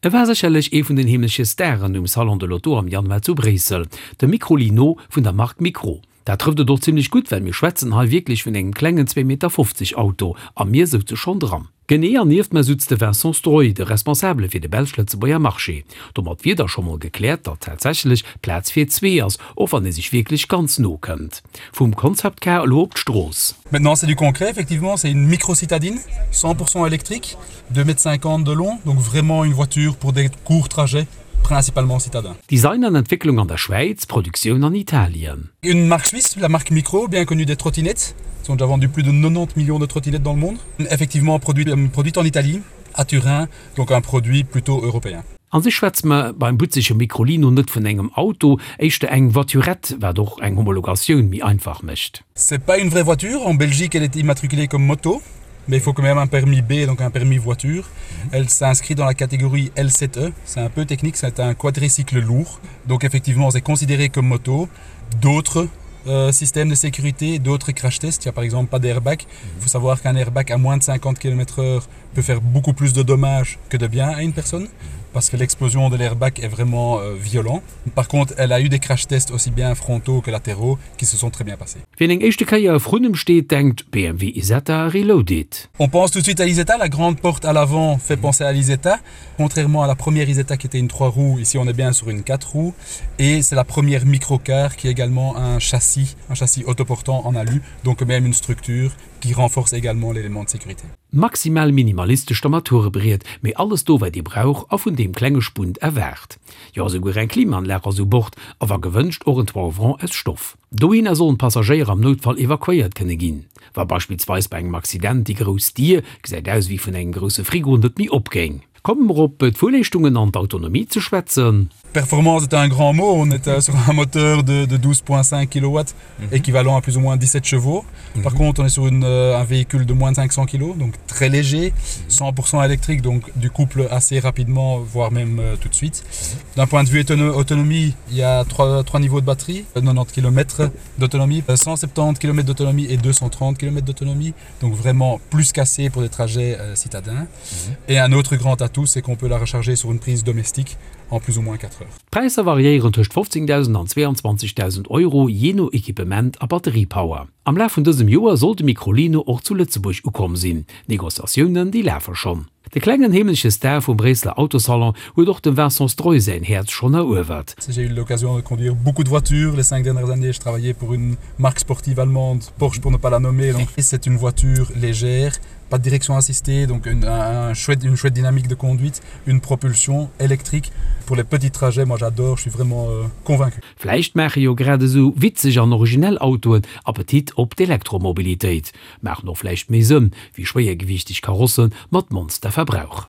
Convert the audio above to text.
E war sécherlech ee vun den heemleche Staren um Salon de l'Auto am Januar zu Bréissel, de Microlino vun der Mark Micro. Dat trëfft et och zimmlech gutt, well mir schwätzen hei wierklech vun engem klengen zwee Meter 50 Auto a mir souze schonn dran. Genee, an nieft mer sutz de Vincent Stroy, de Responsabele fir de belsch-lëtzebuerger Marché. Domat wier da scho mol gekläert, datt tatsächlech Plaz fir zwee ass, och wann ee sech wierklech ganz no kënnt. Vum Concept Car elo op d'Strooss. Maintenant c'est du concret, effectivement, c'est une micro-citadine, 100% électrique, 2 mètres 50 de long, donc vraiment une voiture pour des courts trajets, principalement citadins. Design an Entwécklung an der Schwäiz, Produktioun an Italien. Une marque suisse, la marque Micro, bien connue des trottinettes. Ils ont déjà vendu plus de 90 millions de trottinettes dans le monde. Effectivement produit, euh, produite en Italie, à Turin, donc un produit plutôt européen. An sech schwätze mer beim butzege Microlino net vun engem Auto, éischter eng Voiturette, wat och eng Homologatioun méi einfach mécht. C'est pas une vraie voiture, en Belgique elle est immatriculée comme moto, mais il faut quand même un permis B, donc un permis voiture. Elle s'inscrit dans la catégorie L7E, c'est un peu technique, c'est un quadricycle lourd. Donc effectivement, c'est considéré comme moto. D'autres euh, systèmes de sécurité, d'autres crash tests, il n'y a par exemple pas d'airbag. Il faut savoir qu'un airbag à moins de 50 km/h peut faire beaucoup plus de dommages que de bien à une personne parce que l'explosion de l'airbag est vraiment euh, violent. Par contre, elle a eu des crash tests aussi bien frontaux que latéraux qui se sont très bien passés. Wien eng éischte Kéier vrun em steet, denkt BMW Isetta Reloaded. On pense tout de suite à l'Isetta, la grande porte à l'avant fait penser à l'Isetta. Contrairement à la première Isetta qui était une 3 roues, ici on est bien sur une 4 roues et c'est la première microcar qui est également un châssis, un châssis autoportant en alu, donc même une structure qui renforce également l'élément de sécurité. Maximal minimalistescht Armaturebriet, mee alles do wat ee brauch a vun deem klenge Spunt erwaart. Jo esouguer eng Klimaanlag ass u Bord a wa gewënscht och en Toit ouvrant aus Stoff. Dohinner sollen d'Passagéier am Noutfall evakuéiert kënne ginn, wa beispillsweis bei engem Accident déi grouss Dier, gesäit aus ewéi vun engem grousse Frigo, net méi opgéing. Komme mer op d'Fuerleeschtungen an d'Autonomie ze schwätzen. Performance est un grand mot, on est sur un moteur de, de 12,5 kW, mm -hmm. équivalent à plus ou moins 17 chevaux. Mm -hmm. Par contre, on est sur une, euh, un véhicule de moins de 500 kg, donc très léger, 100% électrique, donc du couple assez rapidement, voire même euh, tout de suite. D'un point de vue autonomie, il y a trois, trois niveaux de batterie, 90 km d'autonomie, 170 km d'autonomie et 230 km d'autonomie, donc vraiment plus cassé pour des trajets euh, citadins. Mm -hmm. Et un autre grand atout, c'est qu'on peut la recharger sur une prise domestique en plus ou moins 4 heures. D'Präisser variéieren tëscht 15.000 an 22.000 Euro, jee no Equipement a Batteriepower. Am Laf vun dësem Joer soll de Microlino och zu Lëtzebuerg ukomm sinn. D'Negociatiounen, déi lafe schonn. De klengen heemleche Star vum Bréisseler Autosalon huet och dem Vincent Stroy säin Häerz schonn eruewert. J'ai eu l'occasion de conduire beaucoup de voitures les cinq dernières années, je travaillais pour une marque sportive allemande, Porsche pour ne pas la nommer, donc c'est une voiture légère, pas de direction assistée, donc une, un chouette, une chouette dynamique de conduite, une propulsion électrique. Pour les petits trajets, moi j'adore, je suis vraiment euh, convaincu. Vläicht maache jo grad esou witzeg an originell Autoen Appetit op d'Elektromobilitéit. Maachen och vläicht méi Sënn wéi schwéiergewiichteg Karosse mat Monsterverbrauch.